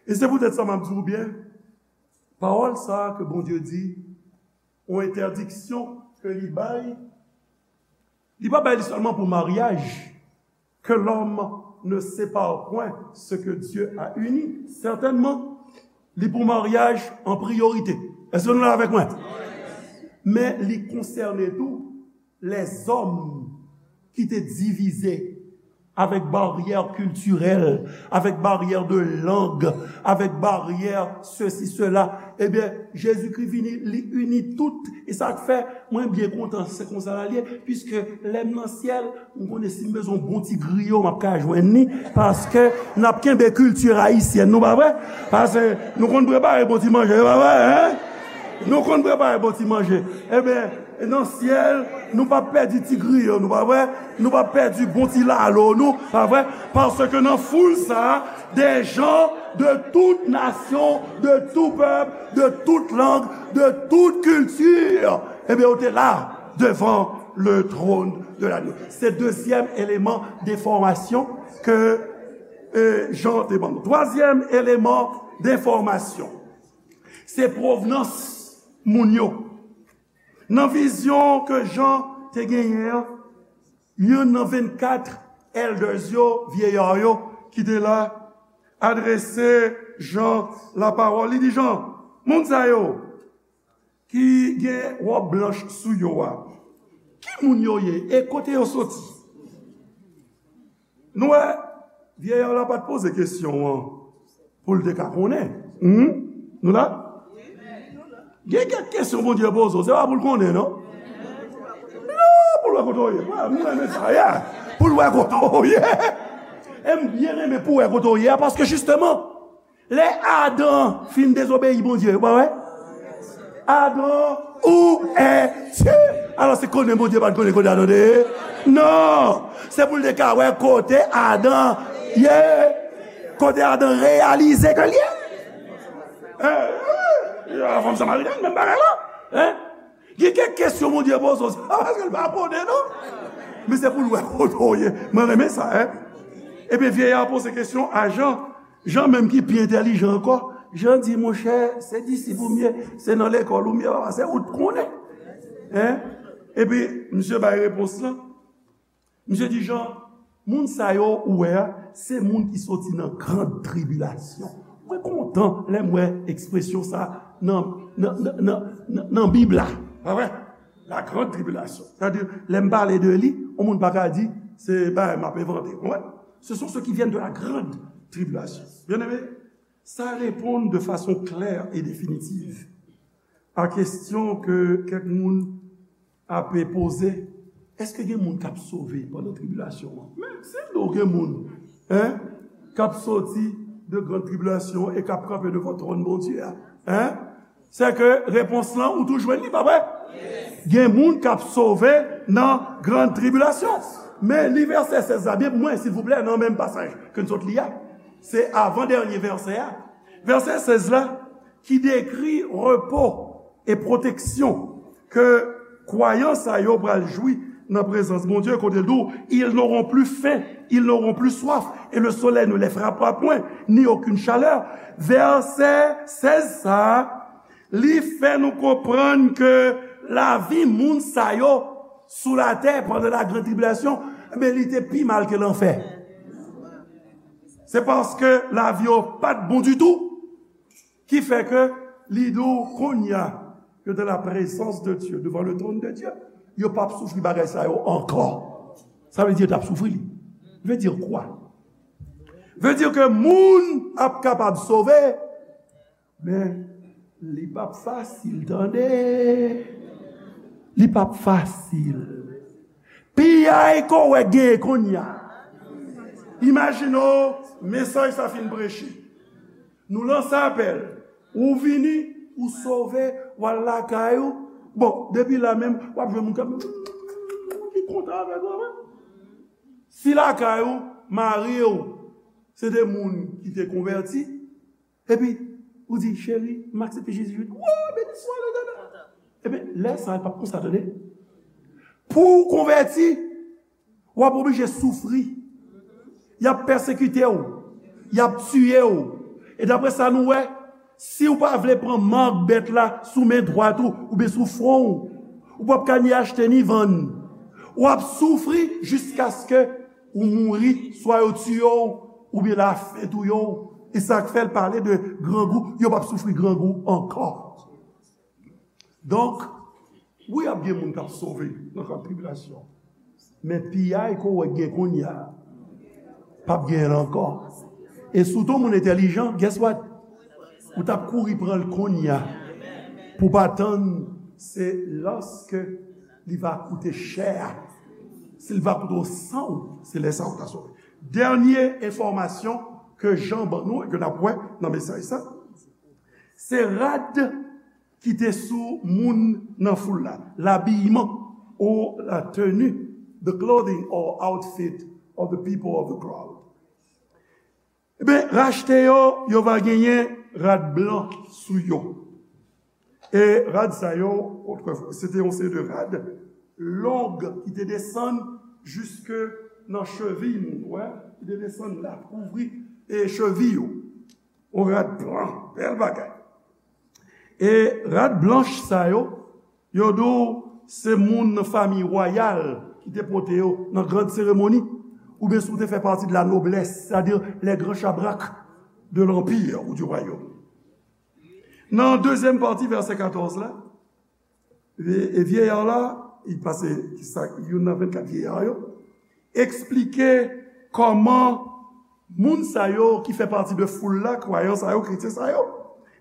E se poutèt sa m ap di w byen, pawòl sa a ke Bondye di, yon entèdiksyon ke li bay, li pa bay li sèlman pou maryaj, que l'homme ne sépare point ce que Dieu a uni. Sètènman, li pou maryaj an priyorite. Èske nou la avèk mwen? Men li konsène tou lèzòm ki te divize avèk baryè kiltirèl, avèk baryè de lang, avèk baryè sesi, sela. Ebyen, Jezikri vini, li ini tout. E sa k fè mwen byen kontan, se konsa l ye, piske lè m nan syèl, m konnen si m bezwen yon bon ti griyo, m ap ka jwenn li, paske n ap kenbe kilti ayisyèn nou, pa vre? Paske nou konn prepare bon ti manje, pa vre, en? Nou konn prepare bon ti manje. Ebyen, nan syèl, nou p ap pèdi ti griyo nou, pa vre? Nou p ap pèdi bon ti lalo nou, pa vre? Paske nan foul sa a, des gens de toute nation, de tout peuple, de toute langue, de toute culture, ebyen, yo te la devant le trône de l'agneau. Se dezyèm eleman enfòmasyon ke, eh, Jan te ban nou. Twazyèm eleman enfòmasyon, se pwovnans moun yo. Nan vizyon ke Jan te genyen an, youn nan vennkat elders yo, vyeyè yo, ki te la, adrese Jan lapawòl. Li di Jan, moun sa yo ki gen wòb blanch sou yo a, ki moun yo ye e kote yo soti? Nou wè, vyeyè la pa t poze kesyon an pou l te ka konnen. Hmm? Nou la? Gen kèk kesyon Bondye poze w, se pa pou l konnen, non? Non, pou l wè kote w ye. Mwen, mwen renmen sa, yeah. Pou l wè kote w ye. E m byen renmen pou w wè kote w ye a, paske jisteman, lè Adan fin dezobeyi Bondye, ou pa wè? Adan, où es-tu? Alò, se konnen Bondye pa t konnen kote Adan te ye? Non! Se pou l te ka wè kote Adan ye, kote Adan reyalize ke l ye. Eh, eh, eh, fanm Samarityen, menm bagay la. Hein? Gen kèk kesyon Bondye poze w, se pa paske l pa konnen, non. Men se pou l wè kote w ye. Mwen renmen sa, hein. Ebyen, vyeyè a poze kesyon a Jan. Jan menm ki pi entèlijan ankò, Jan di, monchè, se disip ou m ye, se nan lekòl ou m ye, papa, se ou t konnen. Hein? Epi, misye bay repons lan. Misye di, Jan, moun sa yo ou wè a, se moun ki soti nan gran tribilasyon. Mwen kontan lè m wè ekspresyon sa nan, nan, nan, nan, nan, nan Bib la. Pa vre? La grande tribulation. Sètadi, lè m pale de li, yon moun pa ka di, se bagay m ap envante. Ou konprann? Ce sont ceux qui viennent de la grande tribulation. Bien-aimé, sa reponn de fason klè e definitiv a kesyon ke kèk moun ap poze, èske gen moun k ap sove pandan tribilasyon an? Men, si m di w gen moun, hein, k ap soti de gran tribilasyon e k ap kanpe devan twòn Bondye a, hein, se ke repons lan, ou tou jwenn li, pa vre? Gen moun k ap sove nan gran tribilasyon. Men, li vèsè sèz la byen pou mwen, silvouplè, nan menm pasaj ke n sot li a. Se avan dènye vèsè a. Vèsè sèz la, ki dekri repo e pwoteksyon ke kwayan sa yo pral jwi nan prezans Bondye, kote l di w, ils n'auront plus faim, ils n'auront plus soif, et le soleil ne les frappera point, ni aucune chaleur. Vèsè sèz sa a, li fè nou konprann ke lavi moun sa yo sou latè pandan la grande tribulation, men li te pi mal ke lanfè. Se paske lavi yo pa t bon ditou, ki fè ke li di w kounye a, yo dans la présence de Dieu, devant le trône de Dieu, yo p ap soufri bagay sa yo ankò. Sa vle di yo t ap soufri li. Vle di kwa? Vle di ke moun ap kapab sove, men li p ap fasil, tande. Li p ap fasil. Piyay ke w wè genyen kounye a. Imajine w, mesaj sa fin preche. Nou lanse apèl. Ou vini, ou sove, w al lakay ou. Bon, depi la menm, w ap jwenn moun k ap, ki kontan avèk ou, wi. Si lakay ou, mari w, se de moun ki te konvèti, epi ou di, cheri, m aksepte Jezi, Jezi, o, beni swa Letènèl. Ebyen, lè sa a, l p ap konsa, tande. Pou w konvèti, w ap oblije soufri. Y ap pèsekite w. Y ap tiye w. E daprè sa nou wè, si w pa vle pran mak bèt la sou men dwat ou, oubyen sou fwon w, ou p ap ka ni achte ni vann. W ap soufri jiskaske ou mouri, swa yo tiye w, oubyen lafen touye w. E sa k fè l pale de grangou, yo p ap soufri grangou ankò. Donk, wi, ap gen moun k ap sove nan kan tribilasyon. Men piyay ke w wè gen kounye a, p ap genyen l ankò. E si w te yon moun entèlijan, guess what? Ou t ap kouri pran l kounye a. Pou w pa tann, se lòske li va koute chè a. Si l va koute w san w, se lè sa a ou ta sove. Dènye enfòmasyon ke Jan ban nou e ke n ap wè nan mesaj sa, se rad ki te sou moun nan foul la, labiman ou la tenue, the clothing or outfit of the people of the crowd. Ebyen, rachte yo, yo va genyen rad blan sou yo. E rad sa yo, otrefwa, se te yon seri de rad long ki te desann jiske nan cheviy moun, wè, ki te desann la, kouvri e cheviy yo. Yon rad blan, bèl bagay. E rad blanch sa yo, yo di w se moun nan fanmi wayal ki te pote yo nan gran seremoni, oubyen si w te fè pati de la noblès, sètadi les grands chabrak de l'anpir ou du wayòm. Nan dezyèm pati vèsè katòz la, e, e vyeyar la, li pase, ki sa, youn nan vennkat vyeyar yo, eksplike kòman moun sa yo ki fè pati de foul la, kwayan sa yo, kretyen sa yo,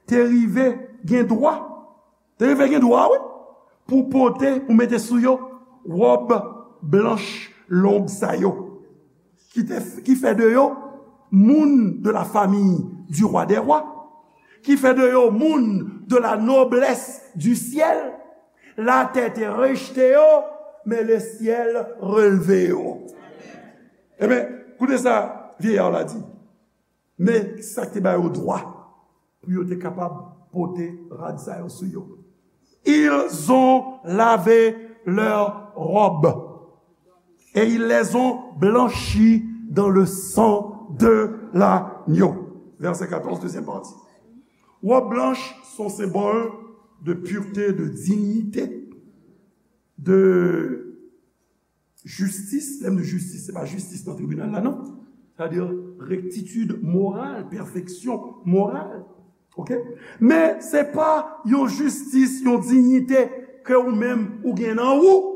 te rive gen dwa, te rive gen dwa, wi, pou pote, pou mete sou yo wòb blanch long sa yo, ki te, ki fè de yo moun de la famille du roi des rois, ki fè de yo moun de la noblesse du ciel. Latè te rejte yo, men le syèl relve yo. Ebyen, koute sa vyeyar la di. Men sa k te ba yo dwa pou yo te kapab pote rad sa yo sou yo. Ils ont lavé leurs robes et ils les ont blanchies dans le sang de l'agneau. Verset quatorze, deuxième partie. Robe blanche, son symbole de pureté, de dignité, de jistis. Lè m di jistis, se pa jistis nan tribinal la, non. Sètadi rektitid moral, pèfeksyon moral. Oke? Men se pa yon jistis, yon diyite ke ou menm ou gen nan ou.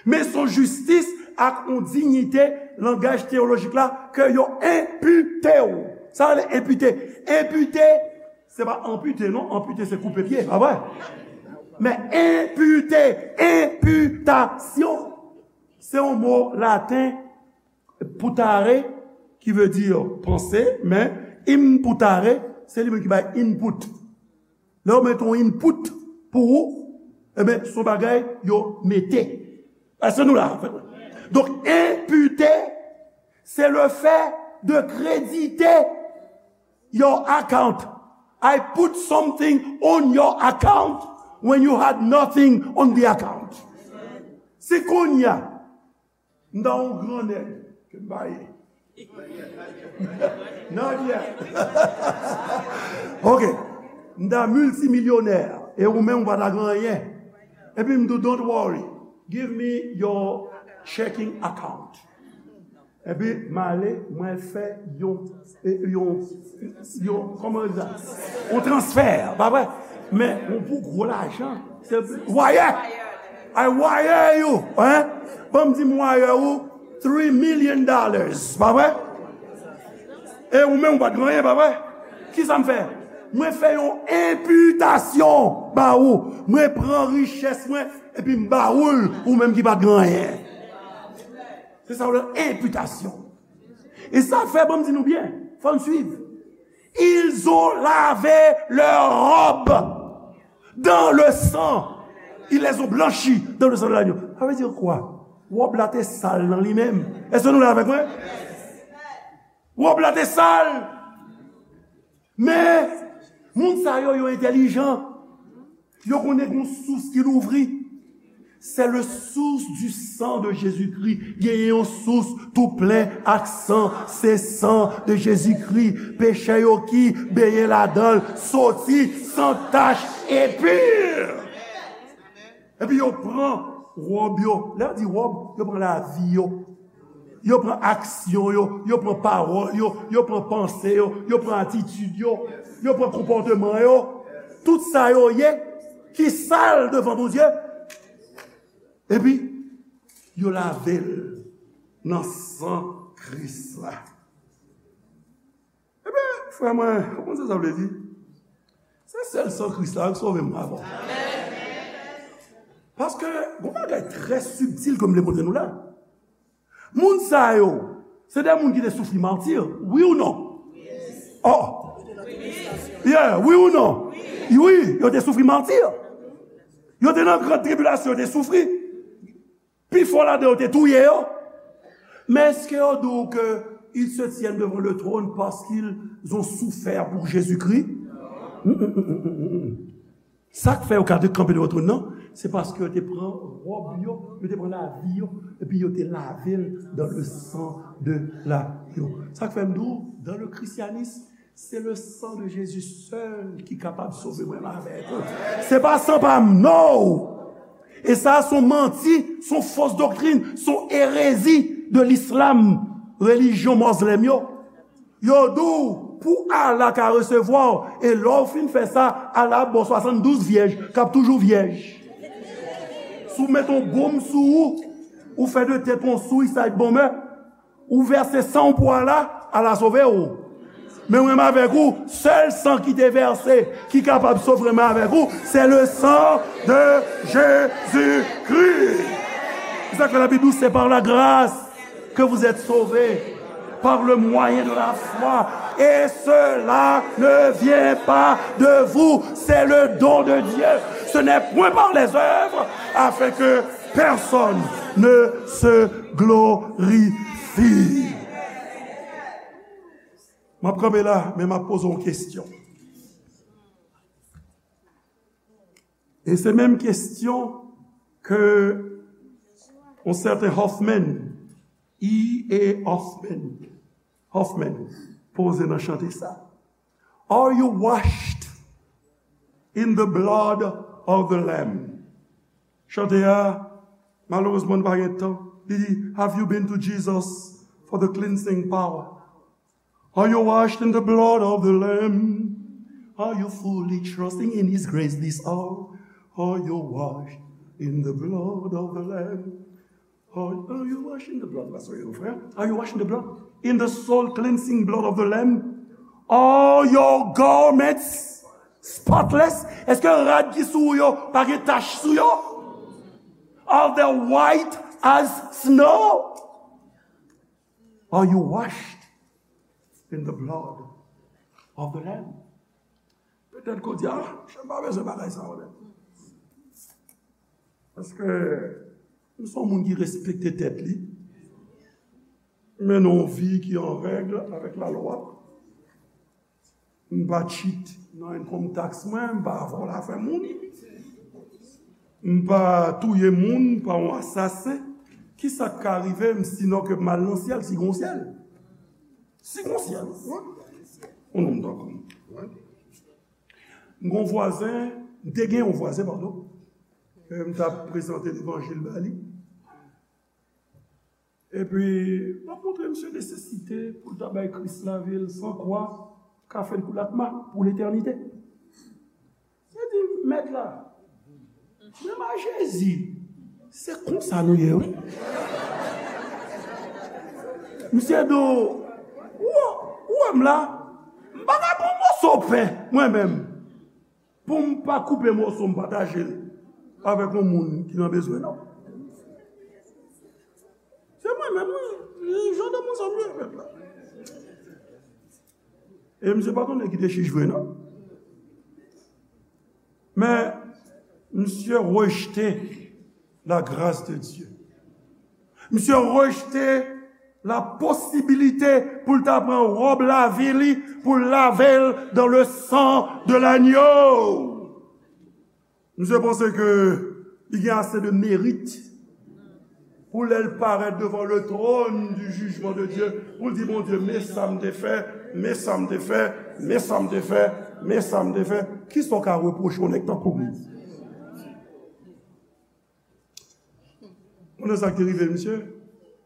Men se yon jistis ak yon diyite, langaj teyolojik la, ke yo enpite w. Sa rele enpite. Enpite, se pa anpite, non. Anpite, se koupe pye, pa vre? Men enpite, enpitasyon, se yon mo laten, putare, ki vle di panse, men imputare, se li menm ki bay input. Lè yo mete yon input pou ou, ebyen, se yon bagay yo mete. Èske nou la, anfèt? Donk, enpite, se le fait de créditer your account I put something on your account when you had nothing on the account. Se kounye a, m ta yon gran nèg ke m pa ye. Not yet. Ok. M ta miltimilyonè, e ou menm ou pa ta gen anyen. Epi m di w, don't worry. Give me your checking account. Epi m ale, mwen fè yon, e, yon, yon, kòman yo di sa? Yon transfè, pa vre? Men yon pou gwo lajan. Se wire. I wire you, hein? Ban m di m wire ou three million dollars, pa vre? E ou menm ou pa t gen anyen, pa vre? Kisa m fè? Mwen fè yon enpitasyon ba ou. Mwen pran richès mwen, epi m ba ou l, ou menm ki pa t gen anyen. Se sa w rele enpitasyon. E sa fè, ban m di nou byen, fò n swiv. Ils ont lavé leur robe dans le sang. Ils les ont blanchis dans le sang de l'agneau. Sa vle di kwa? Wòb la te sal nan li menm. Èske nou la avèk mwen? Wòb la te sal. Men, moun sa yo, yo entèlijan. Yo konnen gon sous ki louvri. C'est le source du sang de Jésus-Christ. Genyen yon sous tou plen ak san. Se san de Jezikri. Peche yo ki benyen ladan l soti san tach e pi. Epi yo pran wòb yo. Lè yo di wòb, yo pran lavi yo. Yo pran aksyon yo, yo pran pawòl yo, yo pran panse yo, yo pran atitid yo, yo pran konpòteman yo. Tout sa yo ye ki sal devan Bondye. Epi, yo lave l nan san Kris la. Ebyen, frè mwen, ou konn sa sa vle di? Se sèl san Kris la ki sove mwen avè w. Paske, gon bagay trè sibtil ke m vle montre nou la. Moun sa yo, se de moun ki te soufri mati, wi ou non? Oh! Yeah, wi ou non? Wi, yo te soufri mati. Yo te nan gran tribilasyon, yo te soufri. Pifò ladan yo te touye yo. Men èske yo di w ke ils se tiennent devant le trône parce qu'ils ont souffert pour Jésus-Christ? Mm, mm, mm, mm, mm, mm. Sa k fè yo ka kanpe devan twòn nan, se paske yo te pran wòb yo, yo te pran lavi yo, epi yo te lave l dans le sang de l'agneau. Sa k fè m di w, dans le christianisme, c'est le sang de Jésus seul ki kapab sove mwen avèk ou. Se pa san pa m, no! E sa, se yon manti, se yon fos doktrin, se yon erezi de lislam, relijyon mozlèm yo. Yo di w, pou Allah ka resevwa w, e lè w fin fè sa, Allah ap ba w swasanndouz vyèj, k ap toujou vyèj. Si w met yon bonm sou ou, ou fè de tèt yon sou, sa ap bonmè. Ou vèse san w pou Allah, Allah sove w. Men mwen avèk ou, sèl san ki te vèse, ki kapab sove mwen avèk ou, c'est le sang de Jésus-Christ. C'est ça que la Bible dit, c'est par la grâce que vous êtes sauvés, par le moyen de la foi. Et cela ne vient pas de vous, c'est le don de Dieu. Ce n'est point par les œuvres, afin que personne ne se glorifie. M ap kanpe la, men m ap poze yon kesyon. E se menm kesyon ke yon sèten Hoffman, E A Hoffman, Hoffman, poze nan chante sa. Are you washed in the blood of the Lamb? Chante a, malerezman, nou pa gen tan. Li di, have you been to Jesus for the cleansing power? Are you washed in the blood of the Lamb? Are you fully trusting in His grace this hour? Are you washed in the blood of the Lamb? Are, are you washed in the blood? Pastor, frè. Are you washed in the blood? In the soul cleansing blood of the Lamb? Are your garments spotless? Èske rad ki sou ou yo pa gen tach sou yo? Are they white as snow? Are you washed in the blood of the Lamb? Petèt ke w di, ah, m pa bezwen bagay sa yo, non. Paske m se yon moun ki respekte tèt li, mennen yon vi ki an règ avèk lalwa. M pa cheat nan income tax mwen, m pa vòlò afè moun. M pa touye moun, m pa yon asasen. Kisa k ka rive m sinon ke m al nan syèl, si gon syèl? Si gon syèl, wi. Yon nonm tankou m. M gon vwazen, m te gen yon vwazen, padon. Ke m t ap prezante levanjil ba li. Epi, m ap montre misye nesesite pou l ta bay Kris lavi l san kwa, kafe l kou lakma pou letènite. Misye di, mèt la, menm a Jezi, se konsa nou ye, wi. Misye di w, ou, ou wè m la, m pa ka pran moso pen, mwen menm, pou m pa koupe moso m pataje l avèk yon moun ki nan bezwen, non. Se mwen menm, wi. Jan de moun sa m ye, pèp la. E misye pa konnen ki te chich vre, non. Men, misye rejte la grâce de Dieu. Misye rejte la posibilite pou l ta pran wòb lavi li, pou l lave l dans le sang de l'agneau. Misye panse ke li gen ase de merit pou lè l parèt devan le trône du jugement de Dieu, pou l di, Bondye, men sa m te fè, men sa m te fè, men sa m te fè, men sa m te fè. Kisa w ka repwoche yon nèg tankou m? Konnen sa k te rive misye?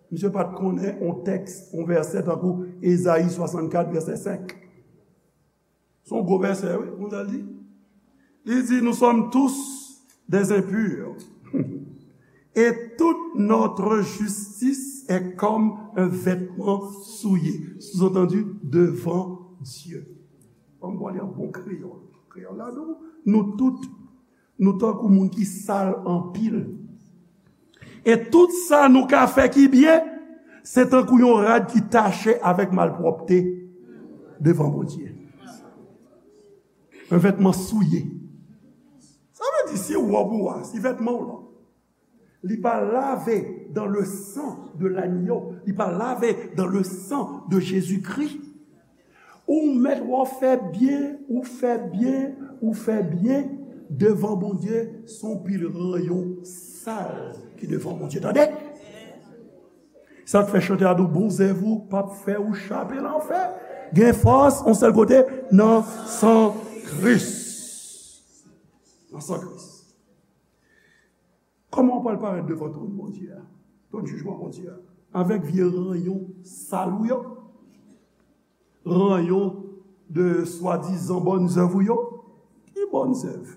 Misye pa t konnen yon tèks, yon vèsè tankou Ezayi swasannkat, vèsè senk. Se yon gwo vèsè, wi, kounye a l di. Li di, nous sommes tous des impurs. Et toute notre justice est comme un vêtement souillé. Sous-entendu, devant Dieu. Ban m pale an bon kreyòl. Kreyòl la, nou, nou tout, nou tankou moun ki sal anpil. E tout sa nou ka fè ki byen, se tankou yon rad ki tache avèk malpwòpte devan Bondye. Un vêtement souillé. Sa vle di, si wòb ou a, si vètman w lan, li pa lave dans le sang de l'agneau, li pa lave dans le sang de Jésus-Christ, ou mèt wè w fè byen, ou fè byen, ou fè byen devan Bondye, se yon pil ranyon sal ki devan Bondye, tande? Sa k fè chante a di w, bon zèv ou p ap fè ou chape lanfè. Gen fòs, yon sèl kote, nan san Kris. Nan san Kris. Kòman w pral parèt devan twòn Bondye a? Twòn jijman Bondye a? Avèk vye ranyon sal ou yo? Ranyon de swadizan bòn zèv ou yo? Ki bòn zèv?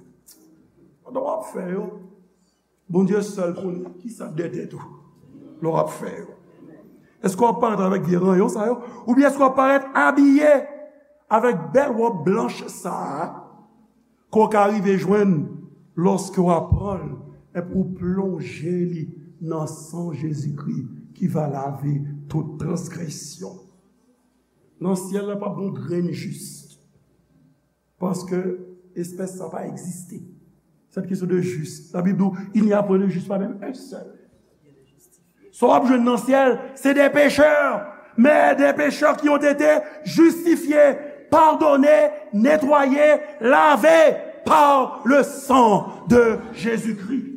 Pandan w ap fè yo, Bondye sèl konnen kisa k dèyè tèt ou lè w ap fè yo. Èske w ap parèt avèk vye ranyon sa yo? Oubyen èske w ap parèt abiye avèk bèl wòb blanch sa a? Ke w ka rive jwenn lòske w ap pran l epi w plonje li nan san Jezikri ki va lave tout transgresyon. Nan syèl la, p ap gen yon grenn jis, paske espès sa pa egziste. Cette question de juste. La Bible dit, il n'y a point de juste, pas même un seul. Sa w ap jwenn nan syèl, c'est des pécheurs, mais des pécheurs qui ont été justifiés, pardonnés, nettoyés, lavés par le sang de Jésus-Christ.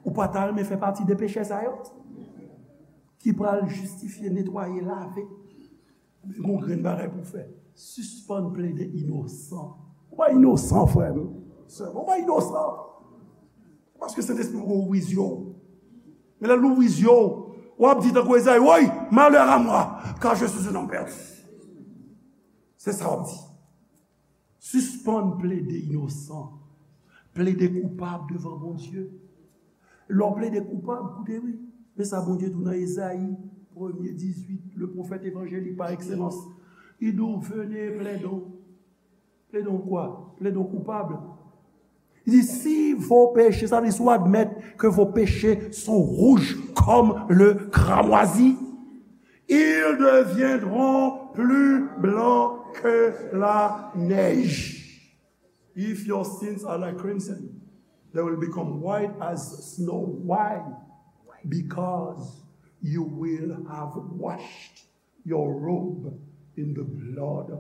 Ou pa ta renmen fè pati de pechè sa yo? Ki pral jistifye, netwaye, lave. Gon grenn bagay pou w fè. Sispann plede inosan. Ou pa inosan, frè m, sè m. Ou pa inosan. Paske Sentespri poko ouvri zye w. Men lè l ouvri zye w, w ap di tankou Ezayi, woy, malheur à moi, car je suis un homme perdu. Se sa w ap di. Sispann plede inosan, plede koupab devan Bondye. Lè w plede koupab, koute wi, men sa Bondye di w nan Ezayi, premye dizuit, le pwofèt evanjelik pa ekselans. Li di w, venez, plaidons. Plaidons quoi? Plaidons coupables. Li di, si vos péchés, sa vle di si w admèt ke vos péchés sont rouges comme le cramoisi, ils deviendront plus blancs que la neige. If your sins are like crimson, they will become white as snow. Why? Because you will have washed your robe in the blood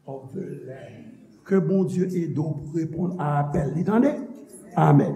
of the Lamb. Ke Bondye ede w pou reponn a apèl li, tande? Amèn.